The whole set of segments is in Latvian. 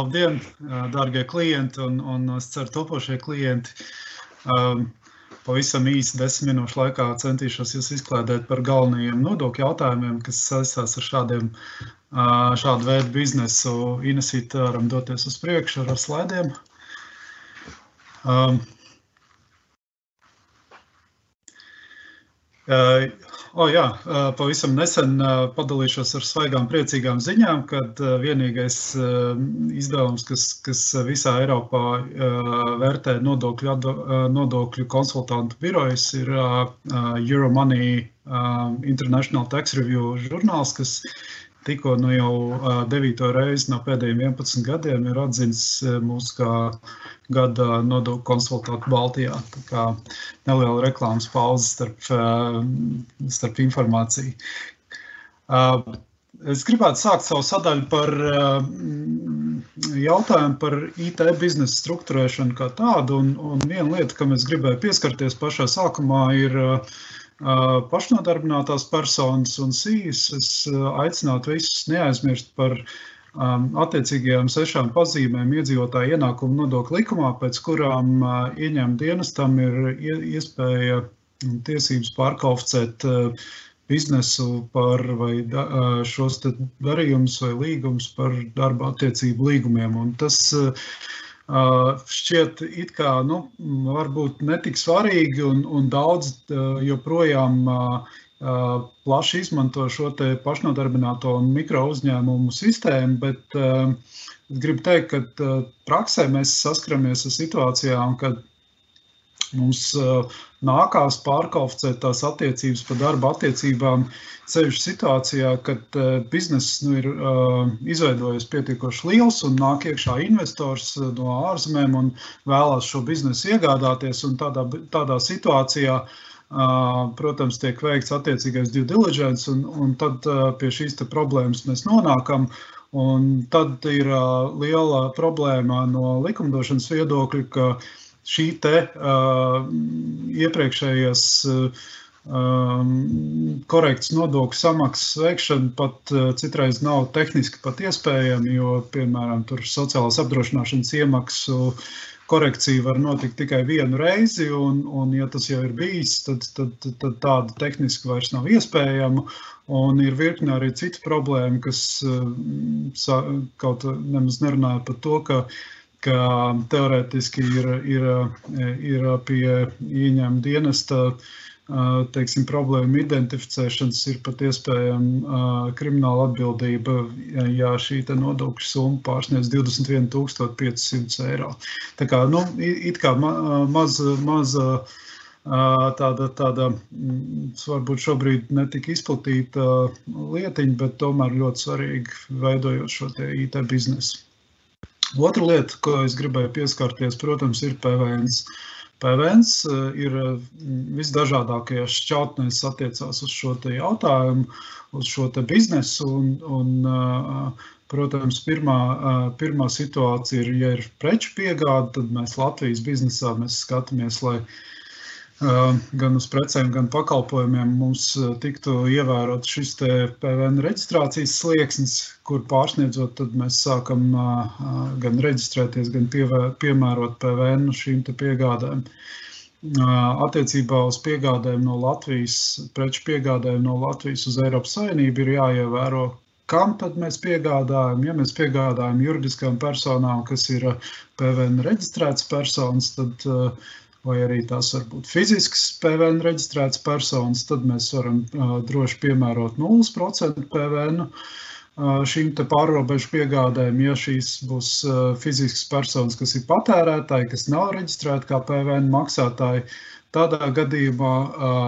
Labdien, dārgie klienti un es ceru topošie klienti. Pavisam īsi 10 minūšu laikā centīšos jūs izklādēt par galvenajiem nodokļu jautājumiem, kas saistās ar šādu veidu biznesu. Inesīti varam doties uz priekšu ar slaidiem. Pavisam nesen padalīšos ar svaigām priecīgām ziņām, kad vienīgais izdevums, kas visā Eiropā vērtē nodokļu konsultantu birojas, ir Euromoney International Tax Review žurnāls, kas tikko jau 9. reizi no pēdējiem 11 gadiem ir atzīts mūsu kā gada nodokļu konsultantu Baltijā. Tā kā neliela reklāmas pauze starp informāciju. Es gribētu sākt savu sadaļu par jautājumu par IT biznesa struktūrēšanu kā tādu, un viena lieta, kam es gribēju pieskarties pašā sākumā, ir pašnodarbinātās personas un SIS. Es aicinātu visus neaizmirst par attiecīgajām 6 pazīmēm iedzīvotāju ienākumu nodokļu likumā, pēc kurām ieņēmuma dienestam ir iespēja un tiesības pārkvalificēt biznesu par vai šos darījumus vai līgumus par darba attiecību līgumiem. Un tas šķiet it kā, varbūt netik svarīgi un daudz joprojām plaši izmanto šo te pašnodarbināto un mikro uzņēmumu sistēmu, bet es gribu teikt, ka praksē mēs saskaramies ar situācijām, kad mums nākās pārkvalificēt tās attiecības par darba attiecībām sevišķi situācijā, kad bizness ir izveidojies pietiekoši liels un nāk iekšā investors no ārzemēm un vēlās šo biznesu iegādāties, un tādā situācijā, protams, tiek veikts attiecīgais due diligence, un tad pie šīs te problēmas mēs nonākam, un tad ir liela problēma no likumdošanas viedokļa, ka šī te iepriekšējās korekts nodokļu samaksas veikšana pat citreiz nav tehniski pat iespējama, jo, piemēram, tur sociālās apdrošināšanas iemaksu korekcija var notikt tikai vienu reizi, un ja tas jau ir bijis, tad tāda tehniski vairs nav iespējama, un ir virkne arī citu problēmu, kas kaut nemaz nerunāja par to, ka teorētiski ir pie ieņēmuma dienesta, teiksim, problēmu identificēšanas ir pat iespējama krimināla atbildība, ja šī te nodokļu summa pārsniedz 21 500 eiro. Tā kā, it kā maza tāda varbūt šobrīd netika izplatīta lietiņa, bet tomēr ļoti svarīgi veidojot šo te IT biznesu. Otra lieta, ko es gribēju pieskarties, protams, ir PVNs. PVNs ir visdažādākajās šķautnēs attiecās uz šo te jautājumu, uz šo te biznesu, un protams, pirmā situācija ir, ja ir preču piegāde, tad mēs Latvijas biznesā skatāmies, lai gan uz precēm, gan pakalpojumiem mums tiktu ievērot šis te PVN reģistrācijas slieksnis, kur pārsniedzot, tad mēs sākam gan reģistrēties, gan piemērot PVN šīm te piegādēm. Attiecībā uz piegādēm no Latvijas, preču piegādēm no Latvijas uz Eiropas Savienību ir jāievēro, kam tad mēs piegādājam. Ja mēs piegādājam juridiskām personām, kas ir PVN reģistrētas personas, tad vai arī tās var būt fiziskas PVN reģistrētas personas, tad mēs varam droši piemērot 0% PVN šīm te pārrobežu piegādēm. Ja šīs būs fiziskas personas, kas ir patērētāji, kas nav reģistrēti kā PVN maksātāji, tādā gadījumā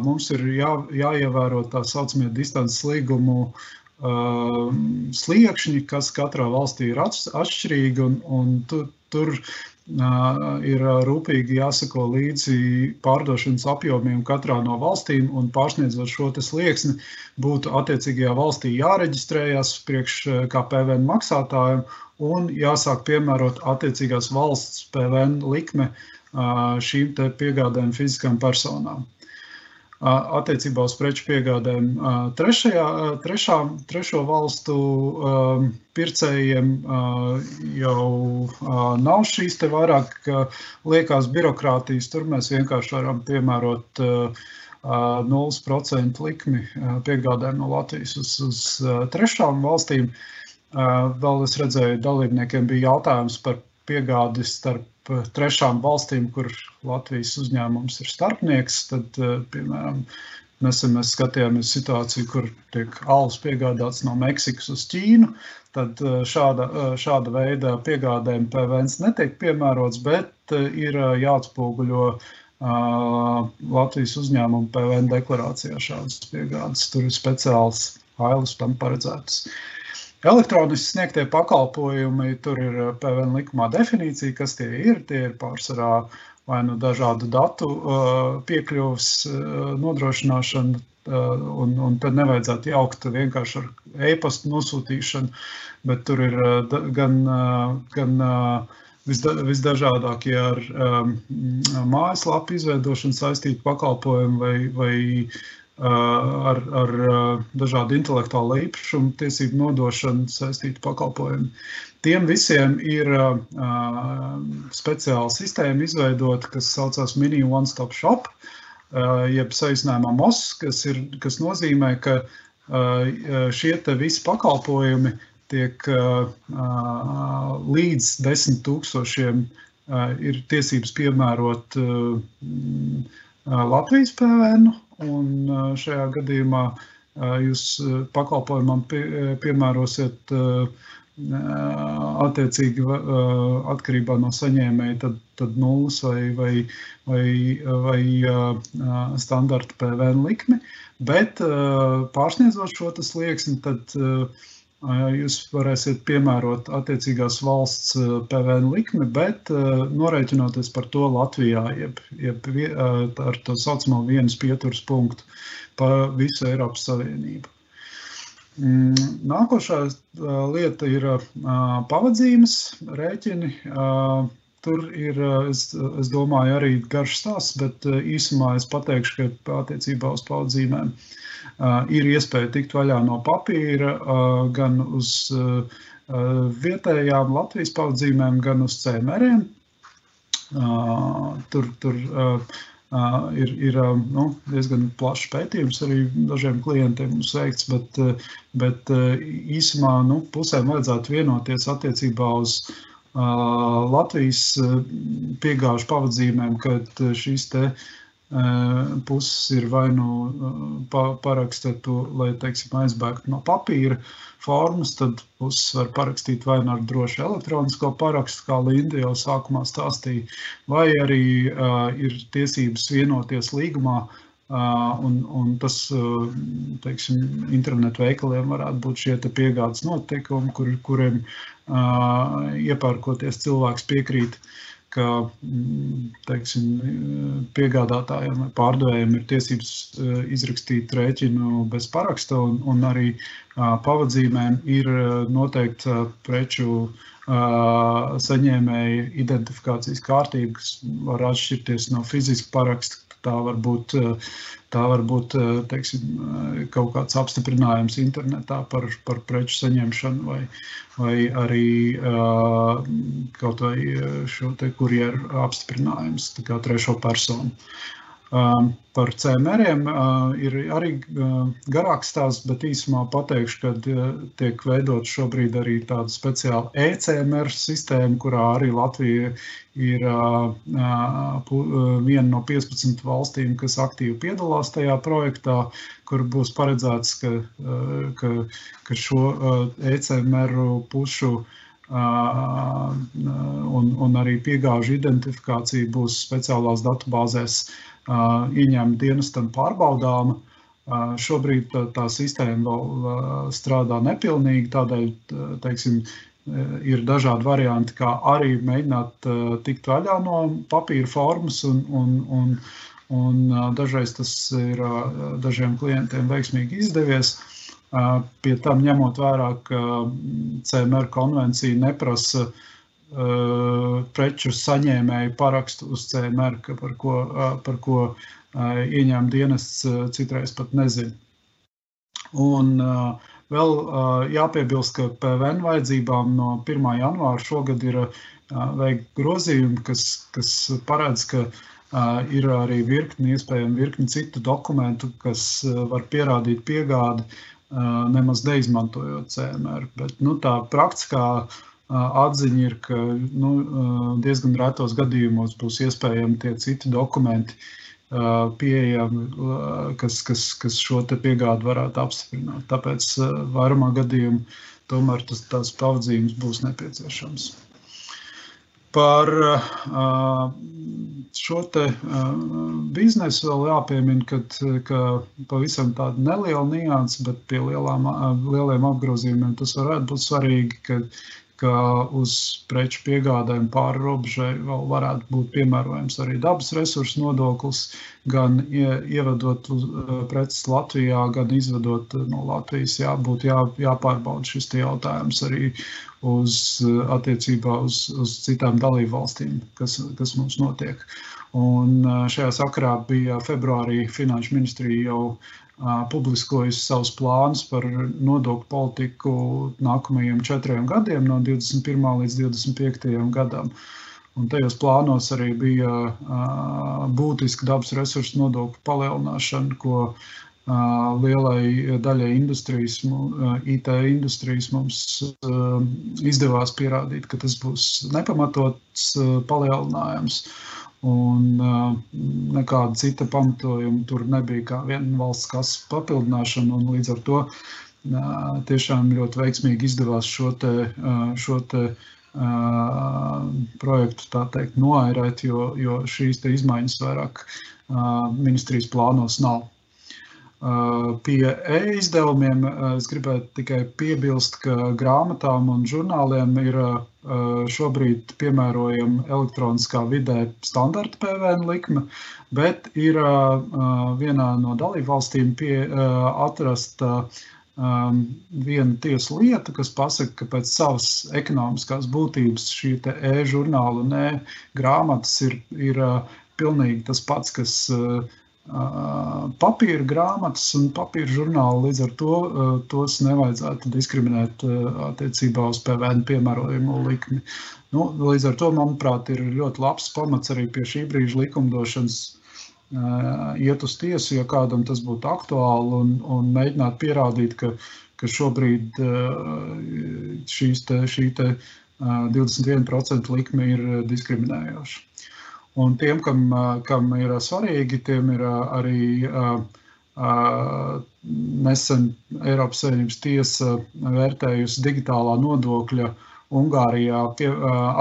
mums ir jāievēro tā saucamie distances līgumu sliekšņi, kas katrā valstī ir atšķirīgi, un tur ir rūpīgi jāsako līdzi pārdošanas apjomiem katrā no valstīm, un pārsniedzot šo te slieksni būtu attiecīgajā valstī jāreģistrējas priekš kā PVN maksātājiem un jāsāk piemērot attiecīgās valsts PVN likme šīm te piegādēm fiziskām personām. attiecībā uz preču piegādēm trešo valstu pircējiem jau nav šīs te vairāk liekās birokrātijas. Tur mēs vienkārši varam piemērot 0% likmi piegādēm no Latvijas uz trešām valstīm. Vēl es redzēju, dalībniekiem bija jautājums par piegādi starp trešām valstīm, kur Latvijas uzņēmums ir starpnieks. Tad, piemēram, nesen mēs skatījāmies situāciju, kur tiek alus piegādāts no Meksikas uz Ķīnu. Tad šāda veida piegādēm PVNs netiek piemērots, bet ir jāatspoguļo Latvijas uzņēmumu PVN deklarācijā šādas piegādes. Tur ir speciāls ailes tam paredzētas. Elektroniski sniegtie pakalpojumi, tur ir PVN likumā definīcija, kas tie ir. Tie ir pārsvarā vai nu dažādu datu piekļuvas nodrošināšana, un tad nevajadzētu jaukt vienkārši ar e-pastu nosūtīšanu, bet tur ir gan visdažādākie ar mājaslapu izveidošanu saistīti pakalpojumi vai ar dažādu intelektuālo īpašumu tiesību nodošanu saistītu pakalpojumu. Tiem visiem ir speciāla sistēma izveidota, kas saucās Mini One Stop Shop, jeb saīsinājumā MOS, kas nozīmē, ka šie te visi pakalpojumi tiek līdz 10 000 ir tiesības piemērot Latvijas PVN, un šajā gadījumā jūs pakalpojumam piemērosiet attiecīgi atkarībā no saņēmēja tad nulles vai standarta PVN likmi, bet pārsniedzot šo slieksni, tad jūs varēsiet piemērot attiecīgās valsts PVN likmi, bet norēķinoties par to Latvijā, jeb ar to saucamo vienas pieturas punktu pa visu Eiropas Savienību. Nākošā lieta ir pavadzīmes rēķini. Tur ir, es domāju, arī garš stāsts, bet īsumā es pateikšu, ka attiecībā uz pavadzīmēm ir iespēja tikt vaļā no papīra gan uz vietējām Latvijas pavadzīmēm, gan uz CMR-iem. Tur ir diezgan plašs pētījums arī dažiem klientiem mums veikts, bet īsumā pusēm vajadzētu vienoties attiecībā uz Latvijas piegāžu pavadzīmēm, kad šīs te puses ir vai nu parakstīt to, lai, teiksim, aizbēgtu no papīra formas, tad puses var parakstīt vai nu ar drošu elektronisko parakstu, kā Linda jau sākumā stāstīja, vai arī ir tiesības vienoties līgumā, un tas, teiksim, internetu veikaliem varētu būt šie te piegādes noteikumi, kuriem iepērkoties cilvēks piekrīt, ka, teiksim, piegādātājiem vai pārdevējiem ir tiesības izrakstīt rēķinu bez paraksta, un arī pavadzīmēm ir noteikta preču saņēmēja identifikācijas kārtība, kas var atšķirties no fiziska paraksta. Tā var būt, teiksim, kaut kāds apstiprinājums internetā par preču saņemšanu vai arī kaut vai šo te kurjeru apstiprinājums, tā kā trešo personu. Par CMR-iem ir arī garāks stāsts, bet īsumā pateikšu, ka tiek veidot šobrīd arī tāda speciāla e-CMR sistēma, kurā arī Latvija ir viena no 15 valstīm, kas aktīvi piedalās tajā projektā, kur būs paredzēts, ka šo e-CMR pušu un arī piegāžu identifikācija būs speciālās datubāzēs ieņēmuma dienestam pārbaudāma. Šobrīd tā sistēma vēl strādā nepilnīgi, tādēļ, teiksim, ir dažādi varianti, kā arī mēģināt tikt vaļā no papīra formas, un dažreiz tas ir dažiem klientiem veiksmīgi izdevies. Pie tam ņemot vērā, ka CMR konvencija neprasa preču saņēmēju parakstu uz CMR, par ko ieņēmuma dienests citreiz pat nezina. Un vēl jāpiebilst, ka PVN vajadzībām no 1. janvāra šogad ir veikt grozījumi, kas paredz, ka ir arī iespējami virkni citu dokumentu, kas var pierādīt piegādi, nemaz neizmantojot CMR. Bet tā praktiskā atziņa ir, ka diezgan retos gadījumos būs iespējami tie citi dokumenti pieejami, kas šo te piegādi varētu apstiprināt. Tāpēc vairumā gadījumu tomēr tās pavadzīmes būs nepieciešams. Par šo te biznesu vēl jāpiemina, ka pavisam tāda neliela nianse, bet pie lieliem apgrozījumiem tas varētu būt svarīgi, ka uz preču piegādēm pāri robežai vēl varētu būt piemērojams arī dabas resursu nodoklis, gan ievedot preces Latvijā, gan izvedot no Latvijas. Būtu jāpārbauda šis jautājums arī attiecībā uz citām dalību valstīm, kas mums notiek. Un šajā sakarā bija februārī Finanšu ministrija jau publiskojusi savus plānus par nodokļu politiku nākamajiem 4 gadiem, no 21. līdz 25. gadam. Un tajos plānos arī bija būtiska dabas resursu nodokļu palielināšana, ko lielai daļai industrijas, IT industrijas mums izdevās pierādīt, ka tas būs nepamatots palielinājums. Un nekāda cita pamatojuma tur nebija kā viena valsts kases papildināšana, un līdz ar to tiešām ļoti veiksmīgi izdevās šo te projektu, tā teikt, noairēt, jo šīs te izmaiņas vairāk ministrijas plānos nav. Pie e-izdevumiem es gribētu tikai piebilst, ka grāmatām un žurnāliem ir šobrīd piemērojama elektroniskā vidē standarta PVN likme, bet ir vienā no dalībvalstīm atrasta viena tiesu lieta, kas pasaka, ka pēc savas ekonomiskās būtības šī te e-žurnāla un e-grāmatas ir pilnīgi tas pats, kas papīra grāmatas un papīra žurnāli, līdz ar to tos nevajadzētu diskriminēt attiecībā uz PVN piemērojamo likmi. Līdz ar to, manuprāt, ir ļoti labs pamats arī pie šī brīža likumdošanas iet uz tiesu, ja kādam tas būtu aktuāli, un mēģināt pierādīt, ka šobrīd šī te 21% likme ir diskriminējoša. Un tiem, kam ir svarīgi, tiem ir arī nesen Eiropas Savienības tiesa vērtējusi digitālā nodokļa Ungārijā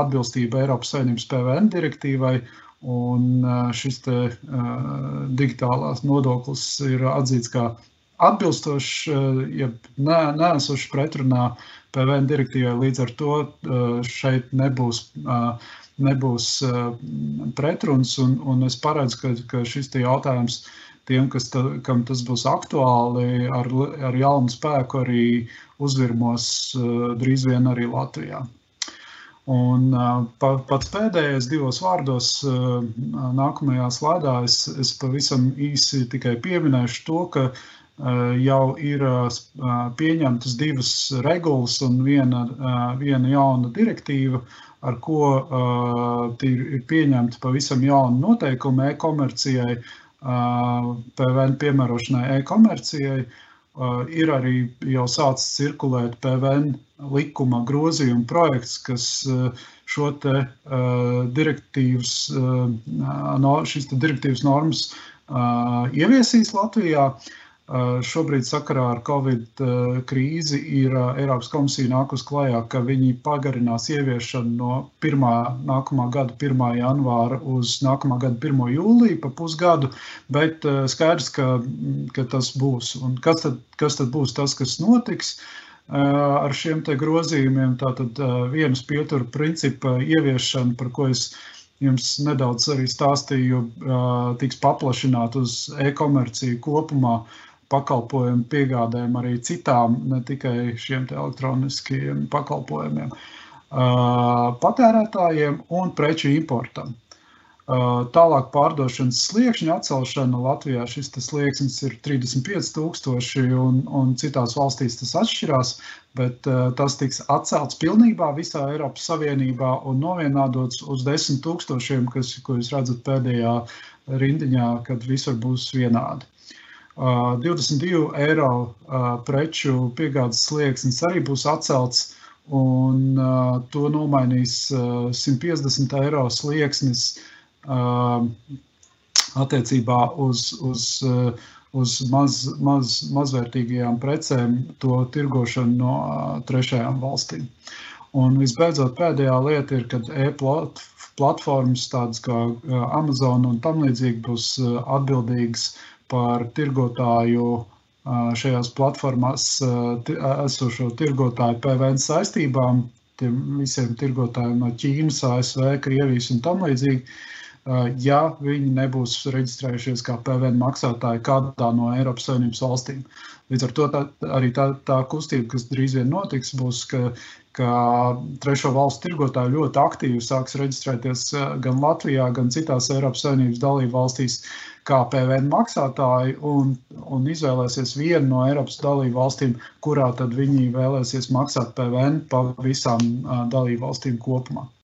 atbilstība Eiropas Savienības PVN direktīvai, un šis te digitālās nodoklis ir atzīts kā atbilstošs, ja neesošs pretrunā PVN direktīvai, līdz ar to šeit nebūs pretruns, un es paredzu, ka šis te jautājums tiem, kam tas būs aktuāli, ar jaunu spēku arī uzvirmos drīz vien arī Latvijā. Un pats pēdējais 2 vārdos nākamajā slaidā es pavisam īsi tikai pieminēšu to, ka jau ir pieņemtas 2 regulas un viena jauna direktīva, ar ko ir pieņemta pavisam jauna noteikuma e-komercijai, PVN piemērošanai e-komercijai. Ir arī jau sācis cirkulēt PVN likuma grozījuma projekts, kas šo te šīs direktīvas normas ieviesīs Latvijā. Šobrīd sakarā ar Covid krīzi ir Eiropas komisija nākus klajā, ka viņi pagarinās ieviešanu no nākamā gada 1. janvāra uz nākamā gada 1. jūliju pa pusgadu, bet skaidrs, ka tas būs. Un kas tad būs tas, kas notiks ar šiem te grozījumiem? Tātad vienas pietura principa ieviešana, par ko es jums nedaudz arī stāstīju, tiks paplašināt uz e-komerciju kopumā, pakalpojumu piegādēm arī citām, ne tikai šiem te elektroniskiem pakalpojumiem. patērētājiem un preču importam. Tālāk pārdošanas sliekšņa atcelšana Latvijā šis slieksnis ir 35,000 un citās valstīs tas atšķirās, bet tas tiks atcelts pilnībā visā Eiropas Savienībā un novienādots uz 10,000, ko jūs redzat pēdējā rindiņā, kad visur būs vienādi. 22 eiro preču piegādes slieksnis arī būs atcelts, un to nomainīs 150 eiro slieksnis attiecībā uz mazvērtīgajām precēm to tirgošanu no trešajām valstīm. Un visbeidzot pēdējā lieta ir, kad e-platformas tādas kā Amazon un tam līdzīgi būs atbildīgas par tirgotāju šajās platformās esošo tirgotāju PVN saistībām, tiem visiem tirgotājiem no Ķīnas, ASV, Krievijas un tam līdzīgi, ja viņi nebūs reģistrējušies kā PVN maksātāji kādā no Eiropas Savienības valstīm. Līdz ar to arī tā kustība, kas drīz vien notiks, būs, ka trešo valstu tirgotāji ļoti aktīvi sāks reģistrēties gan Latvijā, gan citās Eiropas Savienības dalību valstīs kā PVN maksātāji un izvēlēsies vienu no Eiropas dalību valstīm, kurā tad viņi vēlēsies maksāt PVN pa visām dalību valstīm kopumā.